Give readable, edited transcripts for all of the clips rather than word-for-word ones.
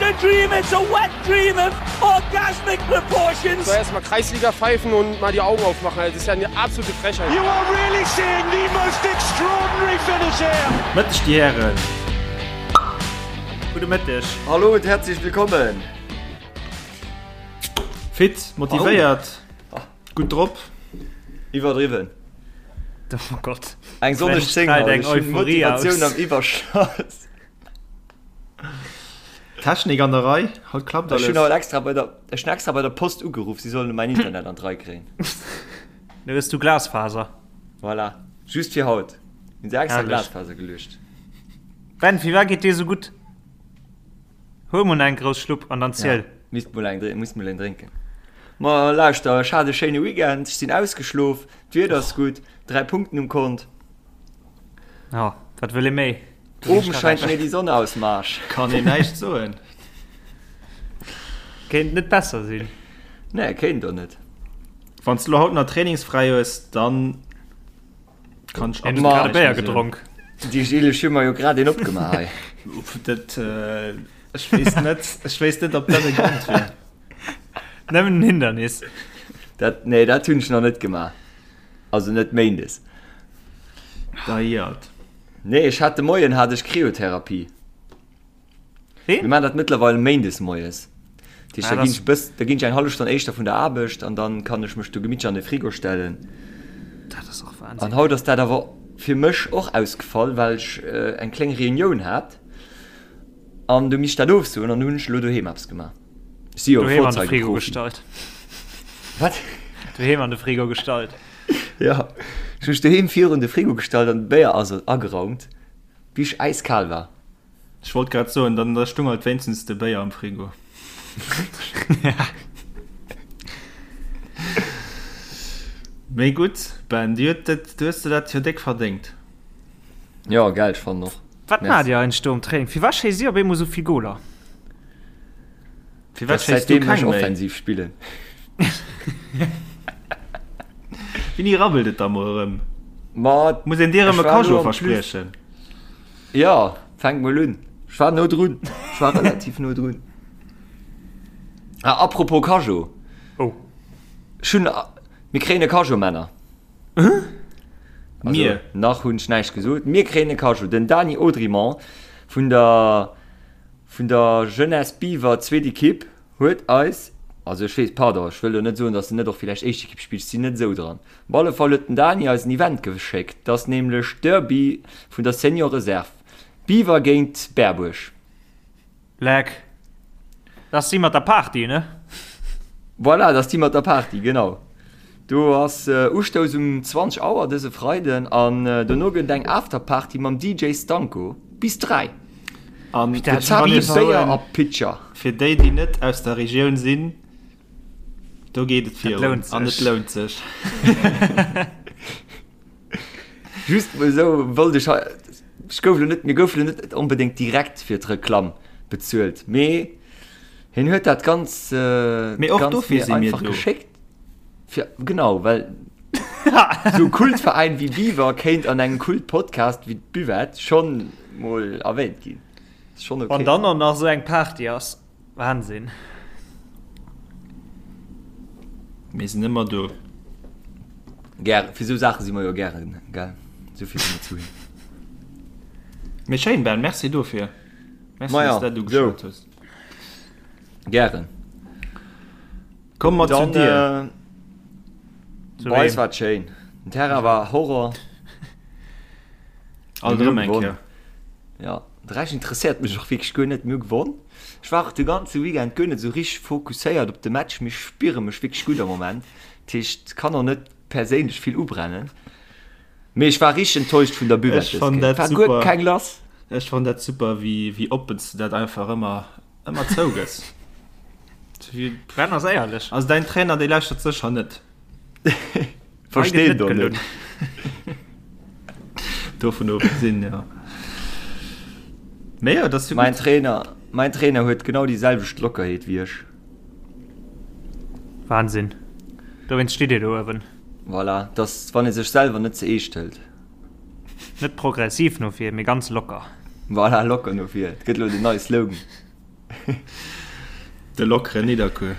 a dream, it's a wet dream of orgasmic proportions. So erstmal Kreisliga pfeifen und mal die Augen aufmachen. Das ist ja eine absolute Frechheit. You are really seeing the most extraordinary finish here. Mëtteg déi Hären. Gudde Mëtteg. Hallo und herzlich willkommen. Fit, motivéiert, gutt drop. Iwwerdriwwen. Oh Gott. Eng sonneg 10 haut, ech hunn Motivatioun am Iwwerschoss. Technik an der Rei, haut klappt Ech alles. hunn haut extra bei der, ech hunn extra bei der Post ugeruff, si sollen mäin Internet an d'Rei kréien. Nu hues du Glasfaser. Voilà, just fir haut hunn se extra Herrlech. Glasfaser geluecht. Ben, firwat geet dir sou gutt? Huel mol nach eng grouss Schlupp an dann ziel. Ja, misst mol eng, muss mol eng drénken. Ma lauschter, ech hat e schéine Weekend, ech sinn ausgeschlof, d'Wieder ass gutt, 3 Punkten um Kont. Ja, wat wëll ee méi? Oben scheint mir die Sonne aus dem Arsch. Kann een näischt soen. Kéint net besser sinn. Nee, kéint och net. Wann s de lo haut nach trainingsfräi hues, dann kann ech absolut grad e Béier gedronk. Déi Gilles, ech hu mer jo grad een opgemaach hei. Dat, ech weess net, ech weess net, ob dat e Grond wier. Nëmmen en Hindernis. Dat, nee, dat hunn ech nach net gemaach. Also net méindes. Deiert. Nee, ech hat de Moien hat ech Kryotherapie. Wéi? Mir maachen dat mëttlerweil méindes moies. Dat heescht, Ah, da ginn das- ech bëss, da ginn ech eng hallef Stonn éischter vun der Aarbecht an dann kann ech mech do gemittlech an de Frigo stellen. Dat ass och Wahnsinn. An haut ass dat awer fir mech och ausgefall, well ech eng kléng Reunioun hat an du misst dat ofsoen an du hunn ech elo doheem eppes gemaach. Ech si jo e Doheem an de Frigo Vorzeigeprofi. gestallt. Wat? Doheem an de Frigo gestallt. Ja, ech hu mech doheem virun de Frigo gestallt an de Béier ass ageraumt, bis ech äiskal war. Ech wollt grad soen, dann da stung halt wéinstens de Béier am Frigo. Mee gutt, Ben, du huet dat, du hues der dat jo déck verdéngt. Jo, gell, ech fannen och. Wat maacht Dir eigentlech do um Training? Firwat schéisst Dir op eemol esou vill Goler? Firwat schéisst du Säitdeem ech keng méi? offensiv spillen. Wéini rabbelt et da mol erëm? Ma Muss een dir ech erëm e war Cageot elo am Plus. verspriechen? Jo, fänk mol un. Ech war no drun. Ech war relativ no drun. Ah, apropos Cageot. Oh. Ech hunn, mir kréien e Cageot, Männer. Also, Mir? Nach hunn ech näischt gesot. Mir kréien e Cageot. Den Dany Audrimont vun der, vun der Jeunesse Biwer, zweet Equipe, huet eis, also ech weess, pardon, ech wëll elo net soen, datt en net och villäicht éischt Equipe spillt, ech sinn net esou dran. Op alle Fall huet den Dany eis en Event geschéckt, dat ass nämlech Derby vun der Senior Reserve, Biwer géint Berbuerg. Leck. Dat ass déi mat der Party, ne? Voilà, dat ass déi mat der Party, genau. Do ass Ustouss um 20 Auer dëse Freiden an dono gëtt et eng Afterparty mam DJ Stanko bis 3. An Gezapte Béier a Pitcher. Fir déi, déi net aus der Regioun sinn, do geet et virun an et lount sech. Just mol esou wollt ech hei, ech gouf elo net, mir goufe elo net onbedéngt direkt fir d'Reklamm bezuelt, mee hien huet dat ganz, Mee och ganz dofir mir si mir einfach do. geschéckt. Fir, genau, well esou e Kultveräin wéi Biwer kéint an engem Kultpodcast wéi d'Buvette schonn mol erwähnt ginn. Ass schonn Wann okay. dann och nach esou eng Party ass, Wahnsinn. Mir sinn ëmmer do. Gären, fir esou Saache si mer jo gären, gell? Esou vill si mer zu him. Mee schéin, Ben, merci dofir. Merci, Maja, dass du dat ugeschwat hues. Gären. Komm mat zu dir. Zu Bei eis wem? war et schéin. Den Terrain war Horror. Alt erëm eng Kéier. Ja, de Rescht interesséiert mech och wierklech guer net. Mir hu gewonn. Ech war och de ganze Weekend guer net esou richteg fokusséiert op de Match, mee ech spiere mech wierklech gutt am Moment. Dat heescht, kann och net perséinlech vill ubrennen. Mee ech war richteg enttäuscht vun der Buvette Ech fann dës Kéier. dat War guer super. keng lass. Ech fann dat super, wéi, wéi oppen s de dat einfach ëmmer, ëmmer zougëss. Ben ass éierlech. Also däin Trainer, dee lauschtert sécher net. Versteet och net. Dovun ofgesinn, jo. Mee jo, dat ass jo Mäin gutt. Trainer, mäin Trainer huet genau déi selwecht Lockerheet wéi ech. Wahnsinn. Dowéinst steet Dir do uewen. Voilà, dass wann ee sech selwer net ze eescht hëlt. Net progressiv no vir, mee ganz locker. Voilà, locker no vir. Et gëtt elo den neie Slogan. De lockeren Nidderkuer.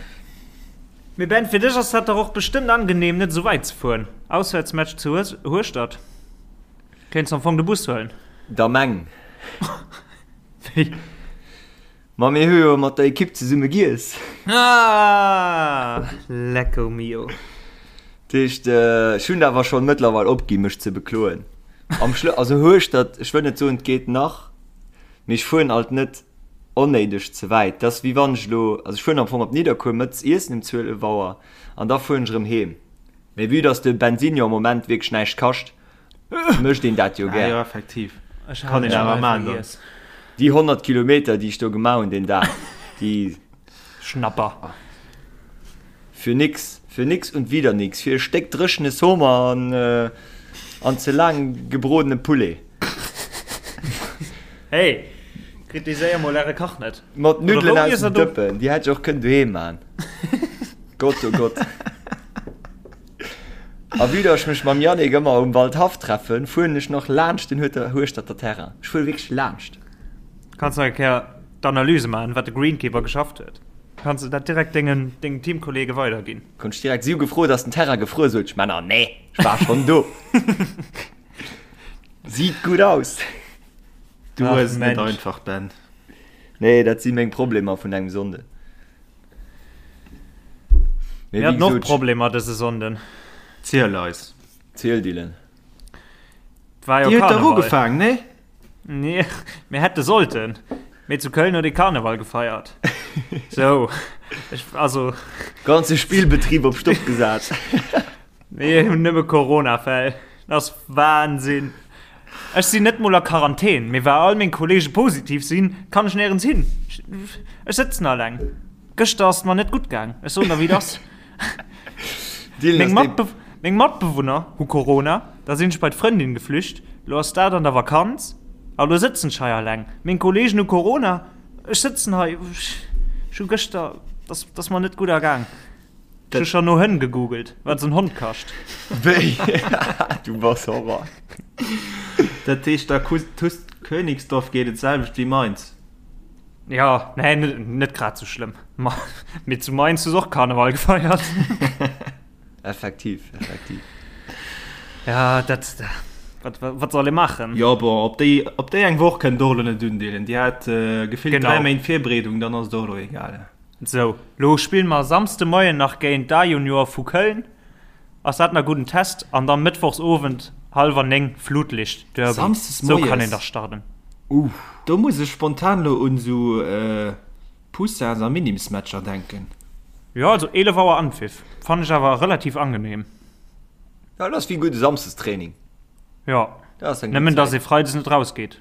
Mee Ben, fir dech ass dat dach och bestëmmt angenehm, net esou wäit ze fueren. Auswäertsmatch zu Hueschtert, kéints am Fong de Bus huelen. Da meng. Wéi? Ma mir hu jo mat der Ekipp zesumme giess. Ah, lecko mio. Dat heescht, ech hunn awer schonn mëttlerweil opgi mech ze bekloen. Am Schlë-, also Hueschtert, ech wëll net soen, et geet nach, mee ech fueren alt net onnéideg ze wäit. Dat ass wéi wann ech elo, also ech fueren am Fong op Nidderkuer mëttes iessen um 12 Auer an da fueren ech erëm heem. Mee vue dass de Bensin jo am Moment wierklech näischt kascht, mécht een dat jo Ah gär. jo, effektiv. Ech Kann hat een et awer bal maan dann. vergiess. Déi 100 Kilometer, déi ech do gemaach hunn deen Dag, déi. Schnapper. Für nix, für nix und wieder nix, fir e Stéck dréchene Sommer an an ze laang gebrodene Poulet. Hey, kritiséier mol äre Kach net. Mat Oder Nuddelen wou aus iesst dem der do? Dëppen, déi hätt ech och kënnen doheem man. Gott, oh Gott. A vue dass ech mech mam Yannick ëmmer um Waldhaff treffen, fueren ech nach laanscht den Hueschterter Terrain. Ech fuere wierklech laanscht. Kanns nach eng Kéier d'Analyse maachen, wat de Greenkeeper geschafft huet. Kanns de dat direkt dengen dengen Teamkollege weiderginn. Konnt ech direkt, si hu gefrot, ass den Terrain gefruer? Sot ech, Männer, nee, ech war schonn do. Sieht gut aus. Du Ach, hues et net Mensch. einfach, Ben. Nee, dat si meng Problemer vun engem Sonnden. Mir haten och Problemer dëse Sonnden. Ziel eis. Ziel, Dylan. War jo Dir huet dach Karneval. ugefaangen, nee? Nee, mir hätte sollten. Mee zu Köln huet ee Karneval gefeiert. Sou, ech, also. Ganze Spillbetrib op Stopp gesat. Mir hunn nëmme Corona-Fäll. Dat ass Wahnsinn. Ech sinn net mol a Quarantän, mee well all meng Kollege positiv sinn, kann ech néierens hin. Ech sëtzen alleng. Gëschter ass et mer net gutt gaang. Ech soen der wéi et ass. Meng Matbe meng Matbewunner hu Corona, da sinn ech bei d'Frëndin geflücht, lo ass dat an der Vakanz a lo sëtzen ech hei alleng. Meng Kollegen hu Corona, ech sëtzen hei. Ech hu gëschter, dat ass mer net gutt ergaang. Ech hu scho no Hënn gegoogelt, wat esou en Hond kascht. Wéi? Du bass Horror. Dat heescht, der TuS Königsdorf geet et d'selwecht wéi Mainz? Jo, nee, net grad sou schlëmm. Ma mee zu Mainz hu se och Karneval gefeiert. Effektiv, effektiv. Ja, dat, wat, wat soll ee maachen? Jo, bon, op déi, op déi eng Woch kënnt och elo net undeelen. Déi hat gefillt 3 Méint Virbereedung, dann ass et och elo egal. Sou, lo spille mer Samsde Moien nach géint d'A-Juniore vu Köln. Ass dat na gudden Test? An dann Mëttwochs Owend hallwer 9 Flutlicht Derby. Samsdes Sou kann een moies? dach starten. Uff, do muss ech spontan lo un sou Poussins a Minims-Matcher denken. Jo, also 11 Auer Anpfiff fannen ech awer relativ angenehm. Jo, dat ass wéi gudde Samsdestraining. Jo, Dat ass eng gutt nëmmen dass Zäit. ee Freides net rausgeet.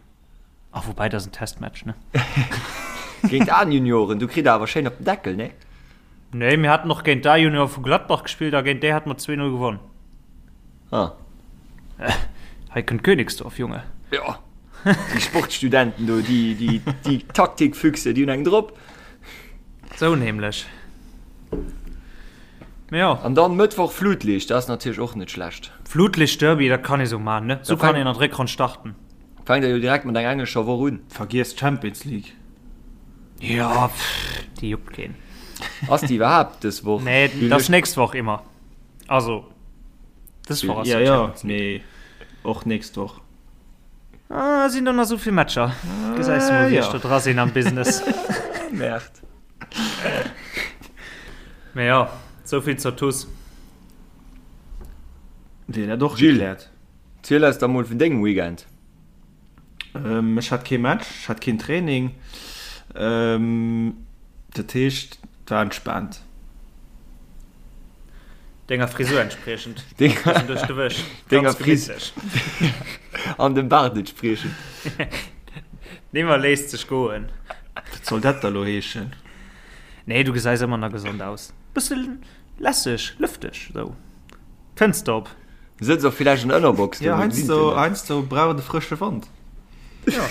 Ah, woubäi, dat ass en Testmatch, ne? Géint d'A-Junioren, du kritt der awer schéin op den Deckel, ne? Nee, mir haten och géint d'A-Juniore vu Gladbach gespillt a géint déi hate mer 2-0 gewonn. Ah. Hei kënnt Königsdorf, Junge. Jo, déi Sportstudenten do, déi, déi, déi Taktikfüchse, déi hunn eng drop. Sou nämlech. Mee jo. An dann Mëttwoch Flutlicht, dat ass natierlech och net schlecht. Flutlicht-Derby, dat kann ee sou maachen, ne? Sou kann een an d'Réckronn starten. Fänkt der jo direkt mat enger englescher Woch un. Vergiess d'Champions League. Jo, pff, déi juckt keen. Ass déi iwwerhaapt dës Woch? Nee, dat ass nächst Woch immer. Also, dës Woch ass Ja, jo ja, Champions League. mee och nächst Woch. Ah, sinn do nach esou vill Matcher? Gesäis de mol, wéi ech do dra sinn am Business. Merde. Mee jo, esou vill zur TuS. Wier dat och Gilles. gekläert. Ziel eis da mol vun dengem Weekend. Ech hat kee Match, ech hat keen Training. Dat heescht, et war entspaant. Denger Frisur entspriechend. Bëssen duerch de Wësch. Denger Ganz gemittlech. An dem Baart entspriechend. Nimmer léisst sech goen. Wat soll dat da lo heeschen? Nee, du gesäis ëmmer nach gesond aus. Bësse lässeg, lëfteg, sou. Fënster op. Sëtz och villäicht an der Ënnerbox. Jo, heiansdo, heiansdo brauch et e frësche Wand. Jo.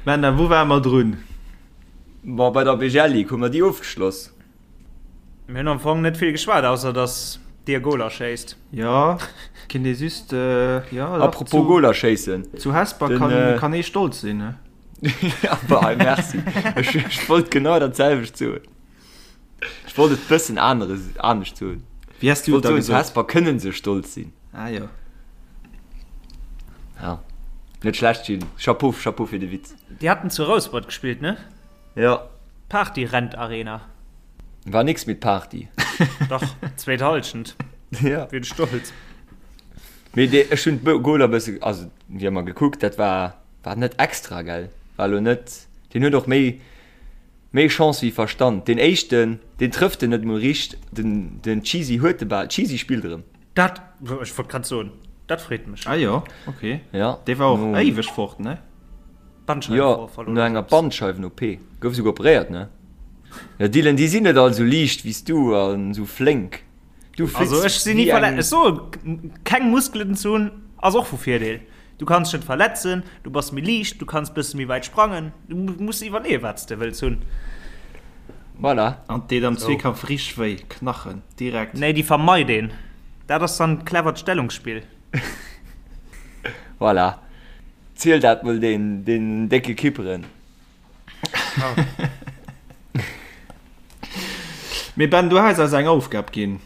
Männer, wou ware mer drun? Bon, bei der BGL Ligue hu mer déi ofgeschloss. Mir hunn am Fong net vill geschwat, ausser dass. Dir Goler schéisst. Jo, kinnt ee just, jo. Apropos Goler schéissen. Zu Hesper kann, kann ee stolz sinn, ne? Ja, bah, merci. Ech, ech wollt genau dat selwecht soen. Ech wollt et bëssen anere, anescht soen. Wéi has du et da gesot? Zu gesot? Hesper kënnen se stolz sinn. Ah jo. Ja. Net schlecht, Gilles. Chapeau, Chapeau fir de Witz. Déi haten zu Rouspert gespillt, ne? Ja. Party-Rent Arena. War nix mit Party. Dach, zweet Halschent. Ja. Wien stolz. Mee dee, ech hunn d'Goler bësse, also déi hu mer gekuckt, dat war, war net extra, gell? War lo net, deen huet och méi, méi Chance wéi Verstand. Deen éischten, deen trëfft en net mol richt, den, den Cheesy huet de Bal, Cheesy spillt erëm. Dat, ech wollt grad soen, dat freet mech. Ah jo, ok. Ja. Dee war och éiweg fort, ne? Jo, no enger Bandscheiwen-OP. Gouf esouguer operéiert, ne? Jo, Dylan, déi sinn net all esou liicht wéi s du an esou flénk. Du flips Also ech sinn ni wéi verletzt. eng. Ech soen, keng Muskelen ze hunn ass och vu Virdeel. Du kanns dech net verletzen, du bass méi liicht, du kanns bësse méi wäit sprangen. Du muss iwwerleeën, wat s de wëlls hunn. Voilà. An 't deet am Zweekampf richteg wéi, Knachen direkt. Nee, déi vermeit een. Dat ass dann clevert Stellungsspill. Voilà. Ziel dat mol den, den décke Kipperen. Mee Ben, du has eis eng Aufgab ginn.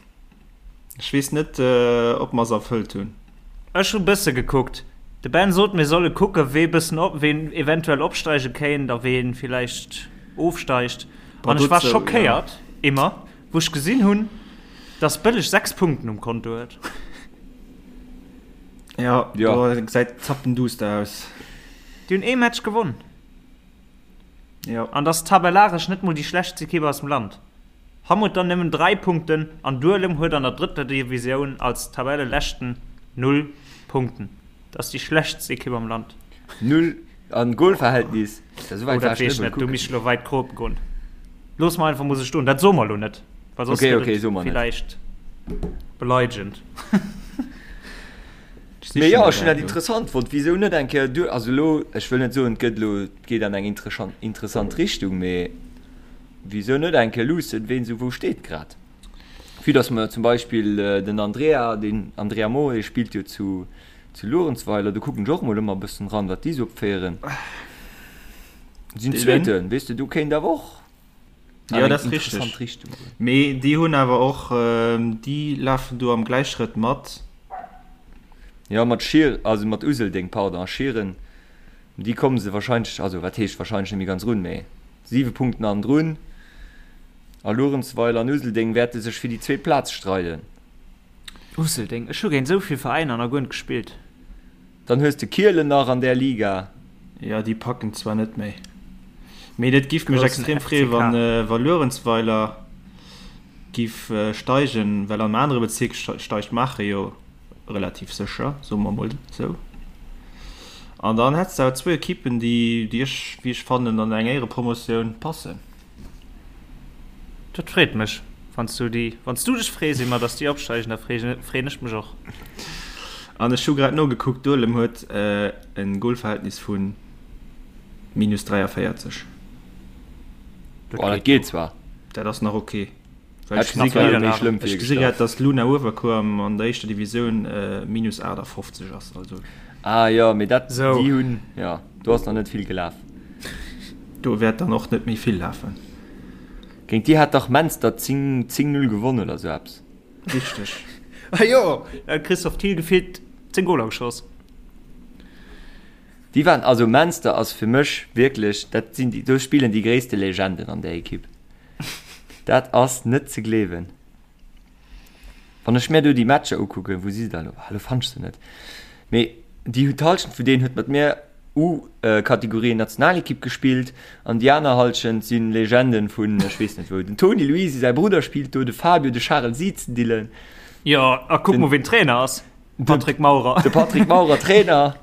Ech weess net, ob mer se erfëllt hunn. Ech hu bësse gekuckt. De Ben sot, mir solle kucke wee bëssen op, ween eventuell opsteige kéint a ween villäicht ofsteigt. An ech war schockéiert, immer, wou ech gesinn hunn, dass Bëlleg 6 Punkten um Konto huet. Ja, do gesäit zappenduster aus. Déi hunn ee Match gewonn. Jo. An dass tabellaresch net mol déi schlechtst Ekipp aus dem Land. Hamm huet dann nëmmen 3 Punkten an Duelem huet an der drëtter Divisioun als Tabelleleschten 0 Punkten. Dat ass déi schlechtst Ekipp am Land. 0 an Golverhältnis? Oh, dat weess ech net, do misst ech elo wäit kropen goen. Looss mer einfach mol sou stoen. Dat soe mer elo net, well soss Okay, gëtt okay, et soe mer net. villäicht beleidegend. Mee jo, ech hunn dat interessant fonnt. Wisou net eng Kéier duer, also elo, ech wëll net soen, et gëtt elo, et geet an eng interessant Richtung, mee wisou net eng Kéier luussen, ween esou wou steet grad? Vue dass mer zum Beispill den Andrea, den Andrea Mohr, dee spillt jo zu zu Luerenzweiler, do kucken ech och emol ëmmer e bëssen ran, wat déi esou opféieren. Sinn Zweeten, weess de, do kéint awer och Jo, dat ass richteg. Mee déi hunn awer och, déi lafen do am Gläichschrëtt mat. Jo, mat Schier, also mat Useldeng, pardon, a Schieren, déi komme se wahrscheinlech, also wat heescht wahrscheinlech net méi ganz run, mee 7 Punkten hannendrun. A Luerenzweiler an Useldeng wäerte sech fir déi zweet Plaz streiden. Useldeng, ech hu géint esou vill Veräiner nach guer net gespillt. Dann hues de Kielen nach an där Liga. Jo, déi packen zwar net méi, mee et giff mech extrem freeën, wann wa Luerenzweiler giff steigen, well am anere Bezierk steigt Maacher jo relativ sécher, soe mer mol esou. An dann hätts de awer zwou Ekippen, déi, déi ech, wéi ech fannen, an eng Éierepromotioun passen. Dat freet mech, wann s du déi, wann s du dech frees iwwer datt déi opsteigen, da freeën ech mech och. An ech hu grad nogekuckt, Duelem huet e Golverhältnis vu minus 43. Dat geet zwar. Dat ass nach ok. Well ech gesi grad, ech gesi grad, datt Luna Uewerkuer an der éischter Divisioun minus 58 ass. Also. Ah jo, mee dat, déi hunn, jo, do ass nach net vill gelaf. Do wäert dann och net méi vill lafen. Géint déi hat dach Menster 10, 10, 0 gewonnen oder sou eppes. Richteg. Ah jo, da huet Christophe Thiel gefillt 10 Goler geschoss. Déi waren, also Menster ass fir mech wierklech, dat sinn déi, do spillen déi gréisste Legenden an där Ekipp. Dat ass net ze gleewen. Wann ech mir do déi Matcher ukucken, wou si se da elo? Ah, elo fannt ech se net. Mee déi hu d'Hallschent vun deenen huet mat mir U-Kategorie Nationalekipp gespillt an déi aner Hallschent si Legenden vun ech weess net wou. Den Toni Luisi, säi Brudder spillt do, de Fabio, de Charel Siezendilen. Jo, a kuck mol ween Trainer ass, Patrick Maurer. De Patrick Maurer Trainer,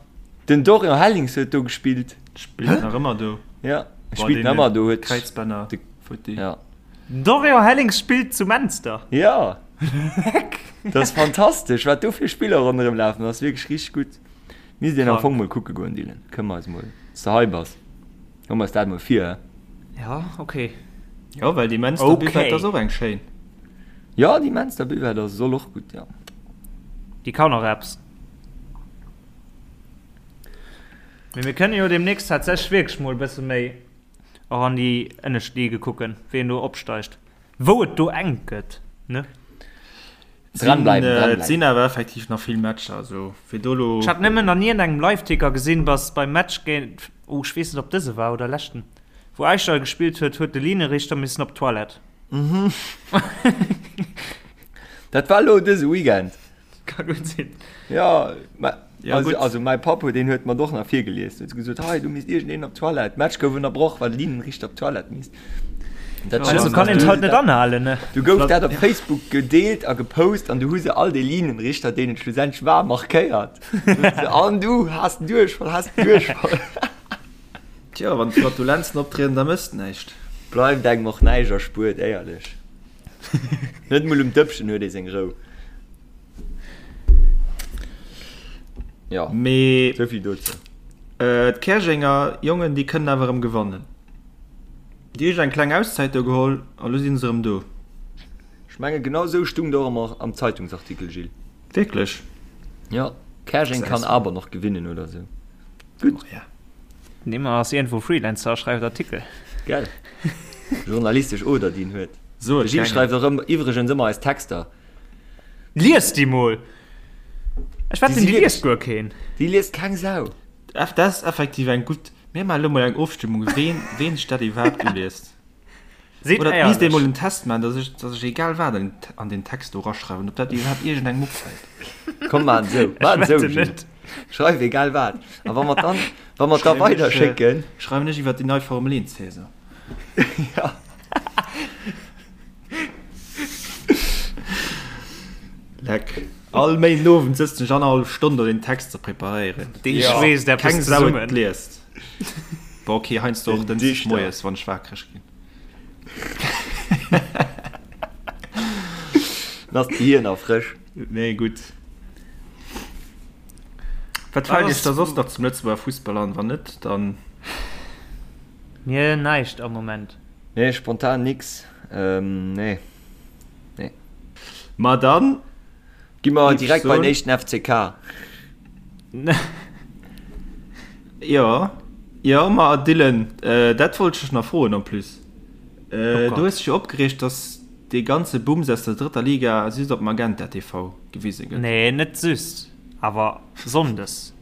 den Dorian Hellings huet do gespillt. Spillt nach ëmmer do. Ja, spillt nach ëmmer do, huet Kräizbänner futti. Ja. Dorian Hellings spillt zu Menster. Ja. Leck. Dat ass fantastesch, wat do fir Spiller ronderëm lafen. Dat ass wierklech richteg gutt. Misst een am Fong mol kucke goen, Dylan. Kënne mer eis mol, wann s de hei bass, hu mer eis dat mol vir, hä? Ja, ok. Jo, well déi Menster Buvette ass och eng schéin. Jo, déi Menster Buvette ass soll och gutt, jo. Déi kann och eppes. Mee mir kënne jo deemnächst tatsächlech wierklech mol e bësse méi och an déi ënnescht Ligue kucken, wien do opsteigt, wou et do enk gëtt, ne? Dranbleiwen, dranbleiwen. Et sinn awer effektiv nach vill Matcher, also fir do lo. Ech hat nëmmen an iergendengem Liveticker gesinn, dass beim Match géint, oh ech weess net ob dëse war oder leschten, wou Äischdall gespillt huet, huet de Linienrichter missen op d'Toilette. Dat war lo dëse Weekend. Ka gutt sinn. Ja, ma, Ja, also, gutt. also mäi Papp huet, deen huet mer och nach virgelies. Huet gesot, hei, do misst iergendeen op d'Toilette. D'Match gouf ënnerbroch, well de Linienrichter op d'Toilette misst. Dat also kann een halt net anhalen, ne? Du gouf dat op Facebook gedeelt a gepost an du hu se all déi Linienrichter, deenen et schlussendlech war, markéiert. An du has den Duerchfall, has den Duerchfall. Tjo, wann d'Flatulenzen optrieden, da mësst näischt. Bleift engem och näischt erspuert, éierlech. Net mol um Dëppchen huet ee seng Rou. Ja, Mee souvill dozou. Äh, d'Käerjenger Jongen, déi kënnen awer erëm gewannen. Déi hu sech eng kleng Auszäit do geholl a lo si se erëm do. Ech menge genau esou stung et och am, am Zeitungsartikel, Gilles. Wierklech? Ja, Käerjeng kann aber noch gewinnen oder sou. Gutt. Oh, ja. Nimmer ass iergendwou Freelancer a schreift Artikel. Gell? Journalistesch Oder, déi en huet. So, De Gilles schreift och ëmmer, iwwregens ëmmer eis Texter. Lies déi mol! Ech wetten, déi liest guer keen. Déi liest keng Sau. Dat ass effektiv eng gutt. Mir maache lo mol eng Ofstëmmung, ween, ween sech dat iwwerhaapt uliest. Seet Oder et misst ee éierlech. mol en Test maachen, dass ech, dass ech egal wat an, an den Text do raschreiwen, ob dat iwwerhaapt iergendengem opfält. Komm, maan esou, Ech maan esou, wetten Gilles. net. Schreif egal wat. A wa mer dann, wa mer da Schreiwen ech, weiderschécken. schreiwen ech iwwer déi nei Formel 1 Saison. Ja. Leck. All Méinden Owend sëtzen ech annerhallef Stonn do den Text ze preparéieren. Dee Ja. schweesst eppes Keng Sau et zesummen. liest. Bon, okay, heiansdo och Den Dënschdeg Dichter. moies, wann ech wakereg ginn. Dann ass d'Gehir nach frësch. Nee, gutt. Wat fält Iech da soss nach zum Lëtzebuerger Fussball an? Wann net, dann. Mir näischt am Moment. Nee, spontan nix. Nee. Nee. Ma dann. Gi mer direkt bei den éischten FCK. Jo, jo, ma Dylan, dat wollt ech dech nach froen en plus. Du hues dech jo opgereegt, dass dee ganze Bums aus der drëtter Liga just op Magenta TV gewise gëtt. Nee, net just, awer sonndes.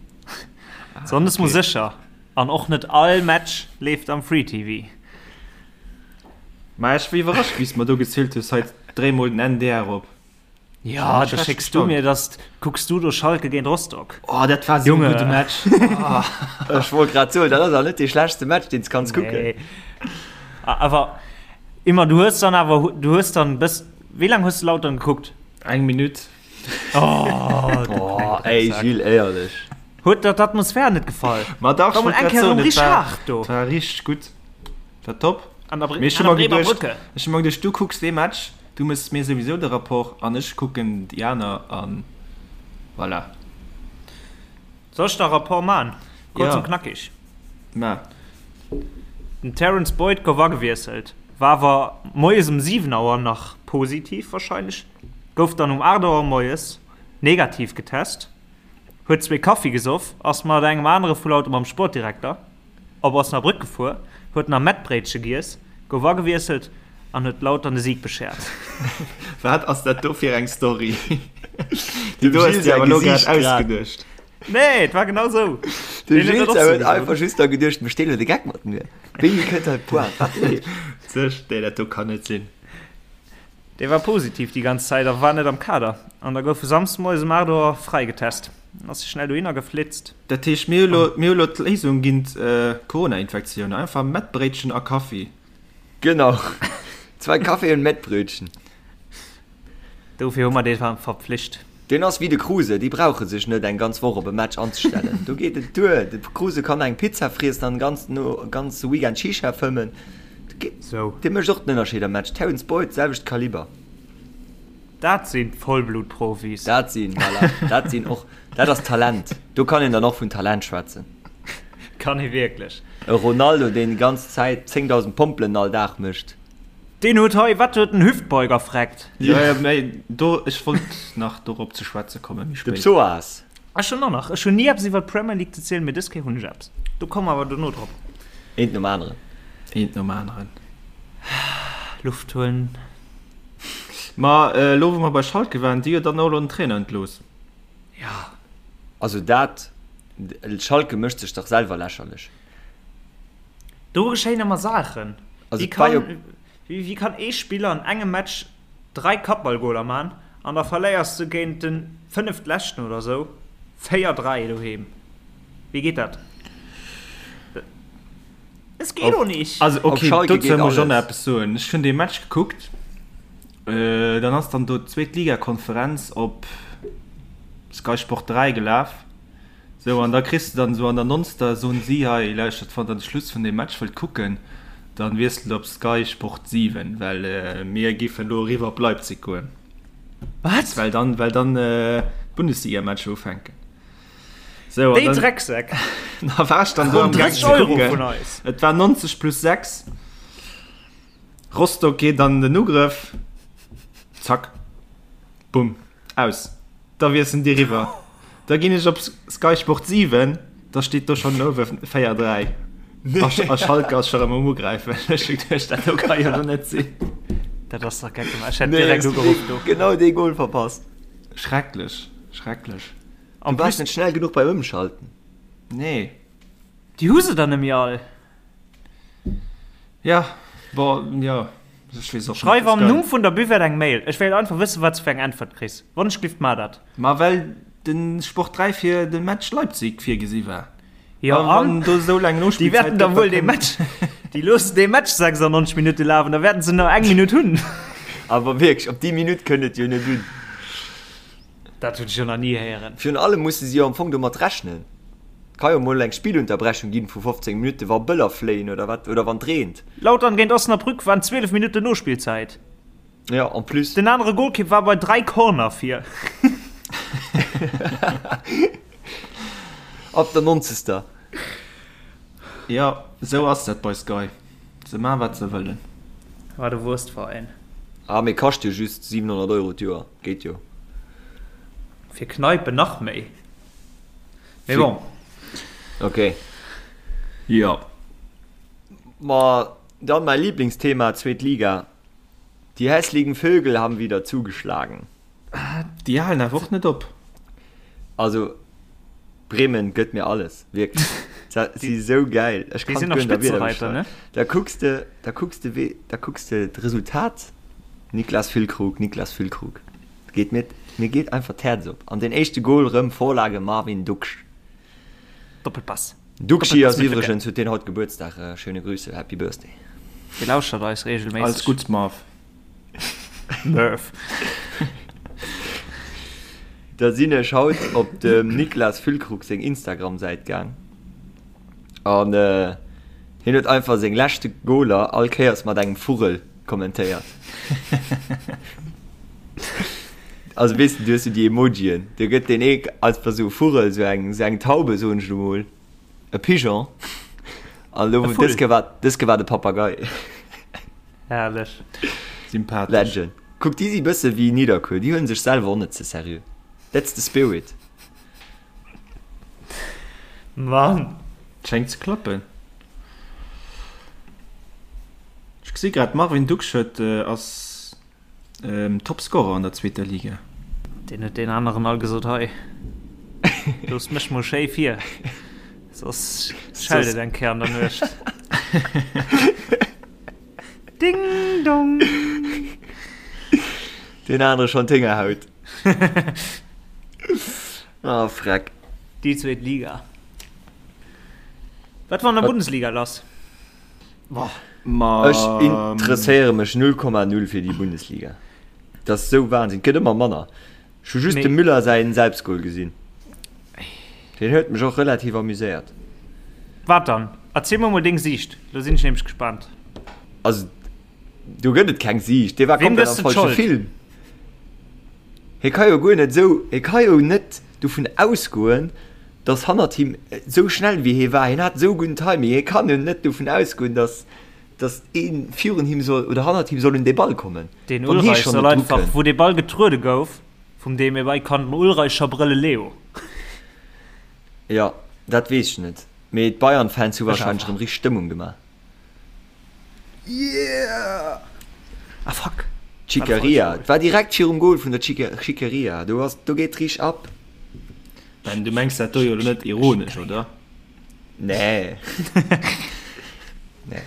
Sonndes mol sécher. An och net all Match leeft am Free TV. Ma ech war iwwerrascht, wéi s de mer do gezielt hues, hei dréi mol den NDR op. Ja, da schécks du mir das, kucks du do Schalke géint Rostock. Oh, dat war sou e gudde Match. Oh. Ech wollt grad soen, dat ass awer net dee schlechtste Match, deen s kanns kucken. Nee. Awer immer, du hues dann awer, du hues dann bis, wéi laang hues du Lautern gekuckt? Eng Minutt. Oh, du oh, ey, Gilles, éierlech. Huet der d'Atmosphär net gefall? Ma dach, War mol eng Kéier erëm richteg haart do. Dat war richteg gutt. War top. An der, Mee ech hu an der mer Bremer geduecht, Brücke. ech hu mer geduecht, du kucks dee Match, Du mëss mir souwisou de Rapport an ech kucken déi aner an voilà. Soll ech der Rapport man? Kurz Ja. und knackig. Ma. Den Terence Boyd gouf agewiesselt, war awer moies um 7 Auer nach positiv wahrscheinlech, gouf dann um 8 Auer moies negativ getest, huet zwee Kaffi gesoff, ass mat engem anere vu Lauter mam Sportdirekter Op Osnabrück gefuer, huet nach Mettbréitche giess, gouf agewiesselt an huet Lautern de Sieg beschert. Wat ass dat do fir eng Story? Dem Déi do hues Gilles de säi awer elo grad Gesiicht grad. ausgeduecht. Nee, et war genau sou. De Deen huet Gilles dat och säi sou huet gesot. einfach just da geduecht, mécht deen elo de Geck mat mir? Wéini kënnt hei d'Pointe? Wat leeft? Sech, nee, dat do kann net sinn. Dee war positiv déi ganz Zäit a war net am Kader. An da gouf e Samsdemoies um 8 Auer fräigetest. Ass schnell dohinner geflitzt. Dat heescht, mir hu lo, mir hu lo d'Léisung géint Corona-Infektioun, einfach Mettbréitchen a Kaffi. Genau, zwei Kaffee und Mettbrötchen. Dofir hu mer dee verpflicht. Deen ass wéi de Kruse, déi brauche sech net eng ganz Woch op e Match anzestellen. Do geet et duer. De Kruse kann eng Pizza friessen an den ganze Weekend Shisha fëmmen. Dee mécht och den Ënnerscheed am Match. Terence Boyd, selwecht Kaliber. Dat sinn Vollblutprofis. Dat sinn, voilà, dat sinn och, dat ass Talent. Do kann een dann och vun Talent schwätzen. Kann ee wierklech. E Ronaldo, deen déi ganz Zäit 10.000 Pompelen all Dag mécht. Deen huet hei, wat huet den Hüftbeuger freckt. Jo, jo, mä do, ech wollt nach dorop ze schwätze kommen, méi De spéit. Psoas. Ech hunn och nach, ech hunn ni eppes iwwer d'Premier League ze zielen, mee dës Kéier hunn ech eppes. Do komme mer awer dono drop. Eent nom aneren. Eent nom aneren. Luft huelen. Ma elo wou mer bei Schalke waren, déi huet dann och elo den Trainer entlooss. Jo. Also dat, Schalke mécht sech dach selwer lächerlech. Do geschéien ëmmer Saachen. Also wéi kann, wéi, wéi kann ee Spiller an engem Match 3 Kappballgoler man an da verléiers du géint den fënneftleschten oder sou 4, 3 doheem? Wéi geet dat? Es geht doch nicht. Also okay, dozou muss ech och nach eppes soen. Ech hunn dee Match gekuckt, dann ass dann do d'Zweetligakonferenz op Sky Sport 3 gelaf. Sou, an da kriss de dann esou an der nonster, soen si, hei lauschtert, wann der de Schluss vun deem Match wëllt kucken, dann wiesselt op Sky Sport 7, well mir giffen elo eriwwer op Leipzig goen. Wat? Well dann, well dann d'Bundesliga-Matcher ufänken. Sou, an Déi dann, Drecksäck! da war ech dann do am Gaang 30 ze Euro kucken. vun eis! Et war 90 plus 6. Rostock geet an den Ugrëff. Zack. Bumm. Aus. Da wiesselen déi riwwer. Da ginn ech op Sky Sport 7, da steet do schonn uewe 4, 3. A Schalke ass scho rëm um Ugräifen. Ech hu geduecht, dat do ka jo lo net sinn. Dat ass dach geck gemaach. Ech hätt direkt ugeruff do. Genau dee Goal verpasst. Schrecklech, schrecklech. Du waars net schnell genuch beim Ëmschalten. Nee. Déi hu se dann nemmi all. Ja, bon, jo. Ech weess och net. Schreif am Numm vun der Buvette eng Mail. Ech wéilt einfach wëssen, wat s de fir eng Äntwert kriss. Wonschglift, mar dat. Ma well de Sport 3 fir de Match Leipzig virgesi war. Jo, A an wann do esou laang déi Nospillzäit wäerten da gëtt, da wuel dee kënnt. Match, déi loossen dee Match 96 Minutte lafen, da wäerten se nach eng Minutt hunn. Awer wierklech, op déi Minutt kënnt et jo net un. Dat hunn ech jo nach ni héieren. Virun allem musse si jo am Fong domat rechnen. Et ka jo mol eng Spillunterbrechung ginn vu 15 Minutten, wa Bëller fléien oder wat, oder wann et reent. Lautern géint Osnabrück waren 12 Minutten Nospillzäit. Jo, en plus. Den anere Golkipp war bei 3 Corner vir. Ab der 90. Jo, esou ass dat bei Sky. Se maan wat se wëllen. Wat e Wurstveräin. Ah, mee kascht jo just 700 Euro d'Joer. Geet jo. Fir Kneipen nach méi. Mee bon. Ok. Jo. Ma dann mäi Lieblingsthema, zweet Liga. Die hässlichen Vögel haben wieder zugeschlagen. Déi halen awer och net op. Also Bremen gëtt mir alles, wierklech. Si sou gäil. Ech Déi kann sinn nach guer net a Wierder Spitzereiter, ne? beschreiwen. Da kucks de, da kucks de wee, da kucks de d'Resultat, Niklas Füllkrug, Niklas Füllkrug. Geet mir, mir geet einfach d'Häerz op. An den éischte Goal rëm Vorlage Marvin Ducksch. Doppelpass. Duckschi Doppelpass ass mit Lücke. iwwregens, huet deen haut Gebuertsdag. Schöne Grüße, Happy Birthday. Dee lauschtert eis regelméisseg. Alles Gutts, Marv. Murph. Da sinn ech haut op dem Niklas Füllkrug seng Instagram-Säit gaang an hien huet einfach seng leschte Goaler all Kéiers mat engem Vugel kommentéiert. Also weess de, du hues jo déi Emojien, do gëtt deen ee einfach esou e Vugel, esou eng, esou eng Taube soen ech elo mol, e Pigeon an elo E Vull. dës Kéier war, dës Kéier war de Papagei. Herrlech. Sympathesch. Legend. Kuck, déi si bësse wéi Nidderkuer, déi huelen sech selwer och net ze seriö. That's the spirit. Mann. Schéngt ze klappen. Ech gesi grad, Marvin Ducksch huet ass Topscorer an der zweeter Liga. Deen huet deen aneren all gesot, hei, looss mech mol schéi vir, soss schellt et eng Kéier an der Nuecht. Ding dong! Deen anere schonn d'Héngerhaut. Oh freck. Déi zweet Liga. Wat war an der Bundesliga lass? Ma Ech interesséiere mech 0,0 fir déi Bundesliga. Dat ass esou Wahnsinn. Et gëtt ëmmer manner. Ech hu just dem Müller säin Selbstgol gesinn. Deen huet mech och relativ amuséiert. Wat dann? Erziel mer mol deng Siicht, lo sinn ech nämlech gespaant. Also do gëtt et keng Siicht, dee war Weem komplett gëss am de falsche d'Schold? Film. Hie ka jo guer net esou, hie ka jo net dovun ausgoen, datt hannert him, esou schnell wéi hie war, hien hat esou gudden Timing, hie kann jo net dovun ausgoen, datt. Dass een virun him soll oder hannert him soll un dee Ball kommen. Den Ulreich soll einfach, wou dee Ball getruede gouf vum Demirbay, kann den Ulreich scho brëlle Leo. Jo, dat weess ech net, mee d'Bayern-Fans hu warscheinlech erëm richteg Stëmmung gemaach. Yeah! Ah fuck! D'Schickeria, et war direkt virum Goal vun der Schickeria, do ass, do geet richteg ab. Ben, du mengs dat do jo elo net ironesch, oder? Nee. nee.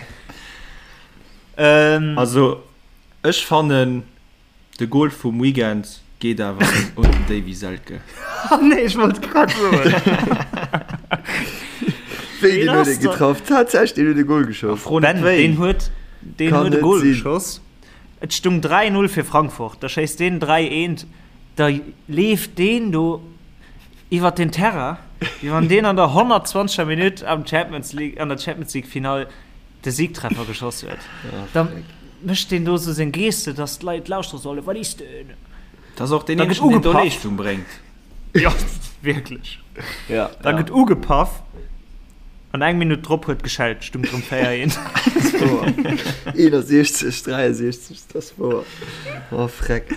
Ähm. Also, ech fannen, de Goal vum Weekend geet awer un den Davy Selke. Ah nee, ech wollt grad soen. Wéi, deen huet ee getraff? Tatsächlech, deen huet e Goal geschoss. Fro net Ben, wéi. deen huet, deen Kann huet e net Goal sinn. geschoss. Et stung 3-0 fir Frankfurt. Da schéisst deen 3-1. Da leeft deen do Iwwert den Terrain, wéi wann deen an der 120. Minutt am Champions League, an der Champions League Finall de Siegtreffer geschoss huet. Da mécht deen do sou seng Geste, dass d'Leit lauschtere sollen, Wat is denn? Dat ass och deen Da gëtt eenzegen, deen do ugepaff. Leeschtung bréngt. Jo, wierklech. Ja, Da ja. gëtt ugepaff an eng Minutt drop huet geschellt, stung drëm 4, 1. Dat ass wouer. 61, 63, dat ass wouer. Oh, freck.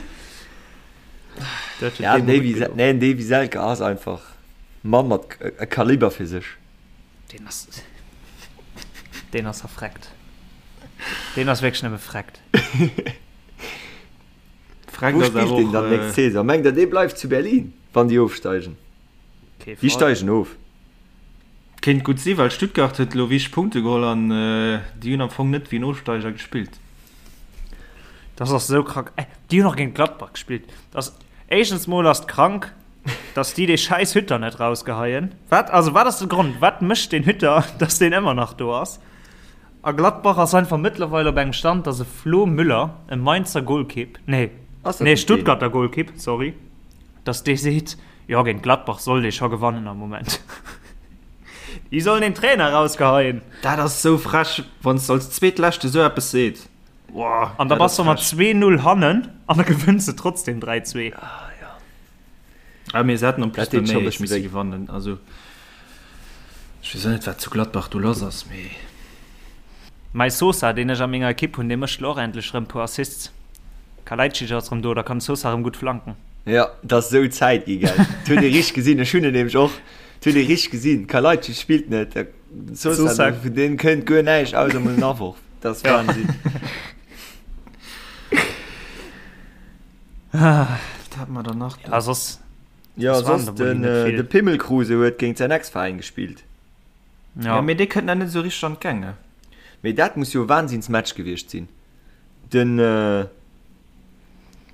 Dat huet Ja, deem Davy, gutt gedoen. nee, Davy Selke ass einfach Mann mat e Kaliber fir sech. Deen ass, deen ass verfreckt. Deen ass wierklech nëmme freckt. Freckt Wou ass spillt awer deen och, dann nächst äh, Saison? Mengt der, dee bleift zu Berlin, wann déi ofsteigen? Kee Déi Fall. steigen of. Kéint gutt si, well Stuttgart huet elo wichteg Punkte geholl an déi hunn am Fong net wéi en Ofsteiger gespillt. Das ass esou krank. Äh, déi hunn och géint Gladbach gespillt. Das, éischtens mol ass et krank, dass déi dee schäiss Hütter net rausgeheien. Wat, also wat ass de Grond? Wat mécht deen Hütter, dass deen ëmmer nach do ass? A Gladbach ass einfach mëttlerweil op engem Stand, dass e Flo Müller, e Mainzer Golkipp, nee, Ass dat nee, net deen? Stuttgarter Golkipp, sorry, dass dee seet, Jo, géint Gladbach sollt ee scho gewannen am Moment. Déi sollen den Trainer rausgeheien. Dat ass sou frech, wann s de als Zweetleschte sou eppes seet. Boah, An da dat bass ass de mat frech. 2-0 hannen an da gewënns de trotzdem 3-2. Ah, mee se hätten en plus Dat deet nach scho méi bësse misse wéi. gewannen. Also, ech weess och net, wat zu Gladbach do lass ass, mee. Mäi Sosa, deen ech a menger Ekipp hunn, dee mécht lo och endlech rëm puer Assists. Kalajdzic ass rëm do, da kann de Sosa rëm gutt flanken. Jo, et ass esou Zäit gi, gell. Et huet ee richteg gesinn, ech hunn en nämlech och, et huet ee richteg gesinn, Kalajdzic spillt net, de Sosa, Sosa. vun deem kënnt guer näischt, ausser emol en Aworf. Dat ass Wahnsinn. Wat hate mer dann nach do? Ja, soss, Jo, soss waren soss der wohl den, net vill. de Pimmel Kruse huet géint säin Ex-Veräin gespillt. Ja, mee dee kënnt nach net esou richteg an d'Gäng, ne? Mee dat muss jo e Wahnsinnsmatch gewiescht sinn. Den,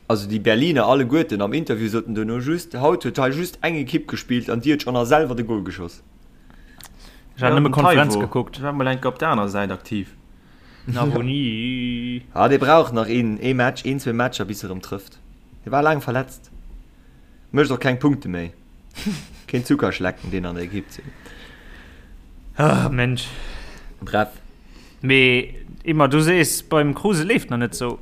also déi Berliner alleguerten am Interview soten duerno just, haut huet hei just eng Ekipp gespillt an déi huet schonn a selwer de Gol geschoss. Ech hat nëmme Konferenz gekuckt. War mol enke op der aner Säit aktiv. Navoni. Ah, dee brauch nach een, ee Match, een, zwee Matcher bis e rëm trëfft. Dee war laang verletzt. Mécht och keng Punkte méi. Keen Zuckerschlecken, deen an der Ekipp ze hunn. Ah, Mensch. Bref. Mee immer, du sees, beim Kruse leeft nach net sou.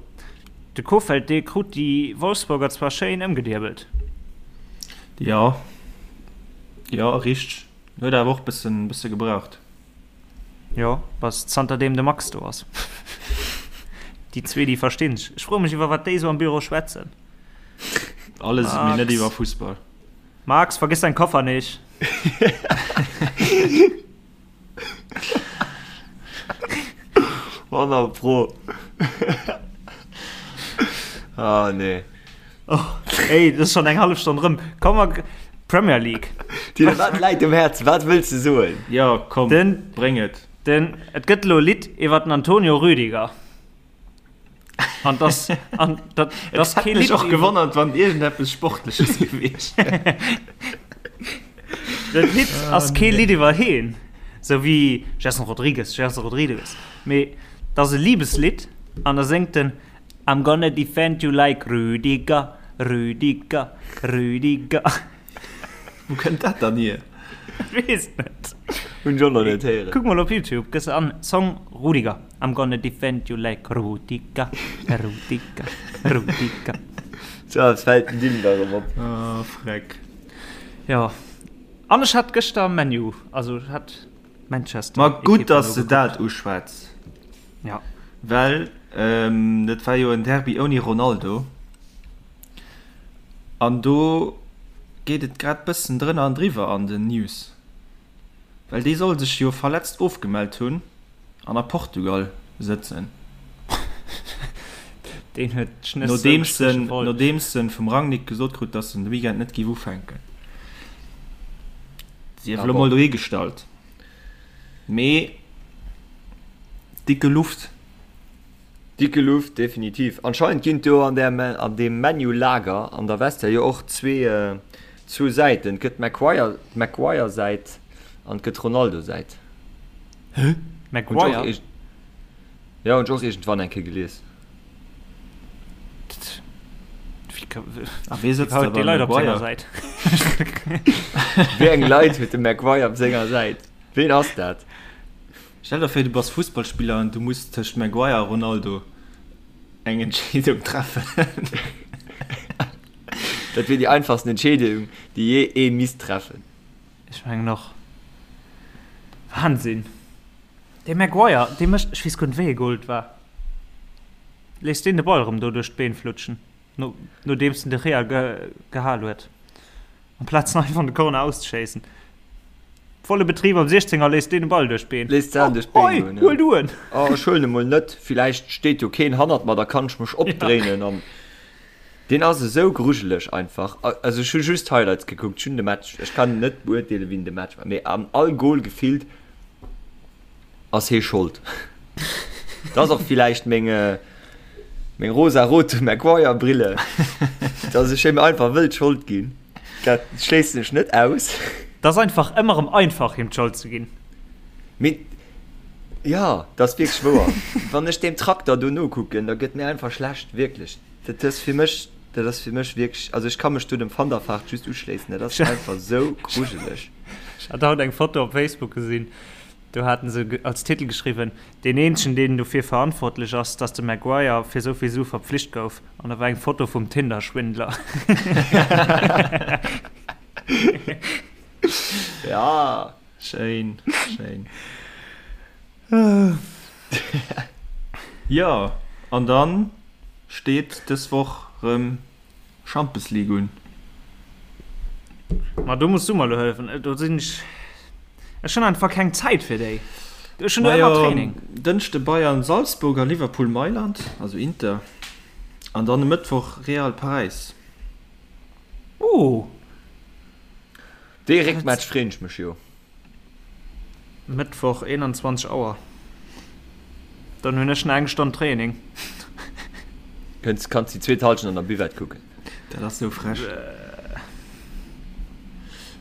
De Kohfeldt, dee krut déi Wolfsburger zwar schéin ëmgediebelt. Jo, jo, richteg. Huet awer och bëssen, bësse gebraucht. Jo, bass zanterdeem de Max do ass. Déi zwee, déi verstinn sech. Ech froe mech, iwwer wat déi sou am Büro schwätzen. Alles, mee net Max. iwwer Fussball. Max, vergiss dein Koffer nicht. Honnert Pro. Ah, nee. Oh, ey, das ist schon eng hallef Stonn rëm. Komm mal, Premier League. Tine, wat läit um Häerz? Wat wëlls de soen? Jo, komm, Den, bréng et. den, et gëtt elo e Lidd iwwer den Antonio Rüdiger. An das, an dat, das Et hätt mech och gewonnert, wann iergendeppes Sportleches gewiescht wär. Dat Lidd ass kee Lidd iwwer heen, sou wéi Gerson Rodrigues, Gerson Rodrigues, mee dat ass e Libeslidd an da séngt en I'm gonna defend you like Rüdiger, Rüdiger, Rüdiger. Wou kënnt dat dann hier? Ech weess et net. Hunn ech och nach net héieren. Kuck mol op Youtube, gëss an Song Rudiger, I'm gonna defend you like Rudiger, Rudiger, Rudiger. Sou eppes fält den Dylan da erëm op. Oh freck. Jo, an ech hat gëschter ManU, also ech hat Manchester. Ma gutt, dass de dat uschwätz. Ja. Well dat war jo en Derby ouni Ronaldo. An do geet et grad bëssen drënner an driwwer an den News. Well dee soll sech jo verletzt ofgemellt hunn an a Portugal sëtzen. Deen huet d'Schnëss sou gestriche voll. Nodeems en vum Rangnick gesot krut, dass en de Weekend net géif ufänken. Sief elo mol dohigestallt. Mee dicke Luft. Dicke Luft, definitiv. Anscheinend ginn et do an där, an deem ManU-Lager an der Vestiaire jo och zwee, zwou Säiten. Et gëtt d'Maguire, d'Maguire-Säit an et gëtt d'Ronaldo-Säit. Hä? Maguire? Jo, hunn ech och iergendwann eng Kéier gelies. A wee sëtzt da beim Maguire? Wéi eng Leit huet de Maguire op senger Säit? Ween ass dat? Stell der vir, du bass Fussballspiller an du muss tëscht Maguire a Ronaldo eng Entscheedung treffen. Dat wier déi einfachsten Entscheedung, déi jee ee misst treffen. Ech mengen och. Wahnsinn! Dee Maguire, dee mécht, ech weess guer net wéi ee Goal et war, léisst deen de Ball erëm do duerch d'Been flutschen, no, nodeems den De Gea ge, gehal huet, amplaz en einfach an de Corner auszeschéissen. Volle Betrib am 16er léisst deen de Ball duerch d'Been. Léisst d'Saach duerch d'Been goen, ja. Huel du en! Oh, ech huelen e mol net, villäicht steet jo keen hannert mer, da kann ech mech opdréinen an. Deen ass esou grujeleg einfach. Also ech hu just Highlights gekuckt, ech hunn de Match, ech kann net beurteelen, wien de Match war, mee an all Goal gefillt ass hee Schold. Dat ass och villäicht meng meng rosa-rote Maguire-Brille, dass ech him einfach wëll d'Schold ginn. Dat schléissen ech net aus. Dat ass einfach ëmmer erëm einfach, him d'Schold ze ginn. Mee jo, dat ass wierklech wouer. Wann ech deem Trakter do nokucken, da gëtt mir einfach schlecht, wierklech. Dat ass fir mech, dat ass fir mech wierklech, also ech ka mech do dem Van der Vaart just uschléissen, dat ass einfach sou grujeleg. Ech hat haut eng Foto op Facebook gesinn, do haten se als Titel geschriwwen, Deen eenzegen deen dofir verantwortlech ass, dass de Maguire fir sou vill Sue verpflicht gouf. An da war eng Foto vum Tinder-Schwindler. Ja. Schéin, schéin. Jo, an dann steet dës Woch rëm Champions League un. Ma do muss du mer lo hëllefen. Do sinn ech, ech hunn einfach keng Zäit fir déi. Ech hunn do ëmmer Training. Dënschde Bayern Salzburg a Liverpool Mailand, also Inter. An dann e Mëttwoch Real Paräis. Oh! Dee Réckmatch freen ech mech jo. Mëttwoch 21 Auer. Dann hunn ech nach eng Stonn Training. Kënns, kanns déi zweet Halschent an der Buvette kucken. Dat ass sou frech.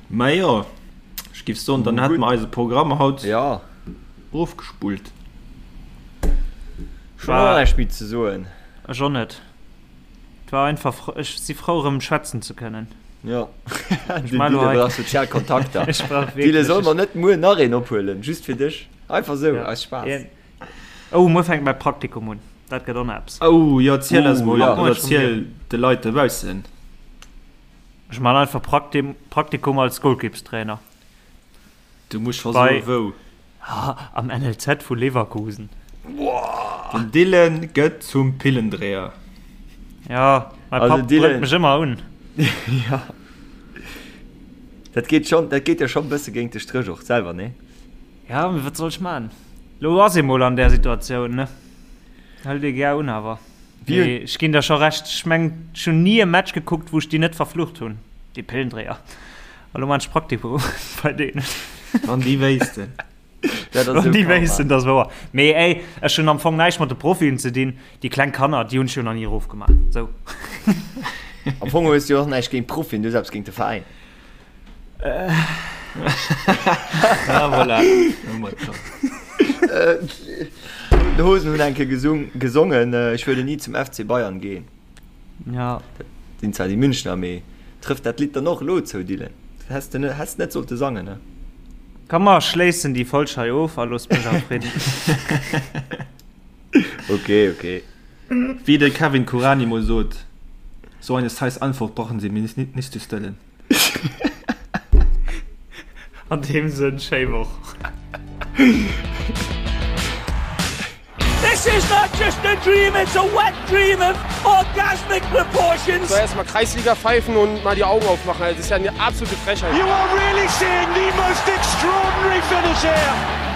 Mä jo, ech giff soen, dann hätte mer eise Programm haut Ja. ofgespullt. Ech hunn och näischt méi ze soen. Ech och net. Et war einfach, ech si frou erëm schwätzen ze kënnen. Jo, den Dylan brauch sozial Kontakter. Ech brauch wierklech. Dylan, solle mer net muer nach een ophuelen, just fir dech? Einfach sou, aus Spaass. Oh, muer fänkt mäi Praktikum un. Dat gëtt och nach eppes. Oh jo, erziel eis mol, oder erziel de Leit dobaussen. Ech man einfach Praktikum als Golkippstrainer. Du muss scho soen wou. Am NLZ vu Leverkusen. Den Dylan gëtt zum Pillendréier. Ja, mäi Papp brëllt mech ëmmer un. Ja. Dat geet schonn, dat geet jo schonn e bësse géint de Stréch och selwer, nee? Ja, mee wat soll ech man? Lo ass ee mol an där Situatioun, ne? Hëlt ee gär un awer. Mee ech ginn der scho Recht, ech meng ech hunn ni e Match gekuckt, wou ech déi net verflucht hunn, déi Pillendréier. A lo man ech Praktikum bei deenen. Wann déi wéissten. Dat ass Wann esou déi Karma. wéissten, dat ass wouer. Mee ey, ech hunn am Fong näischt mat de Profien ze dinn. Déi kleng Kanner, déi hunn ech jo nach ni erofgemaach. Sou. Am Fong hues du jo och näischt géint Profien, du hues eppes géint de Veräin. Ah, voilà. Hu mer et scho. D'Hosen hunn eng Kéier gesung, gesongen, Ich würde nie zum FC Bayern gehen. Ja. Dat sinn zwar déi Münchner, mee trëfft dat Lidd dann och elo zou, Dylan? Dat häss de net, häss net sollte sangen, ne? Komm mer schléissen déi Folg hei of a loosst mech a Fridden. Ok, ok. Wéi de Kevin Kuranyi mol sot, So eine scheiß Antwort brauchen Sie mir nicht zu stellen. An deem Sënn, schéi Woch. This is not just a dream, it's a wet dream of orgasmic proportions. So erstmal Kreisliga pfeifen und mal die Augen aufmachen. Das ist ja eine absolute Frechheit. You are really seeing the most extraordinary finish here.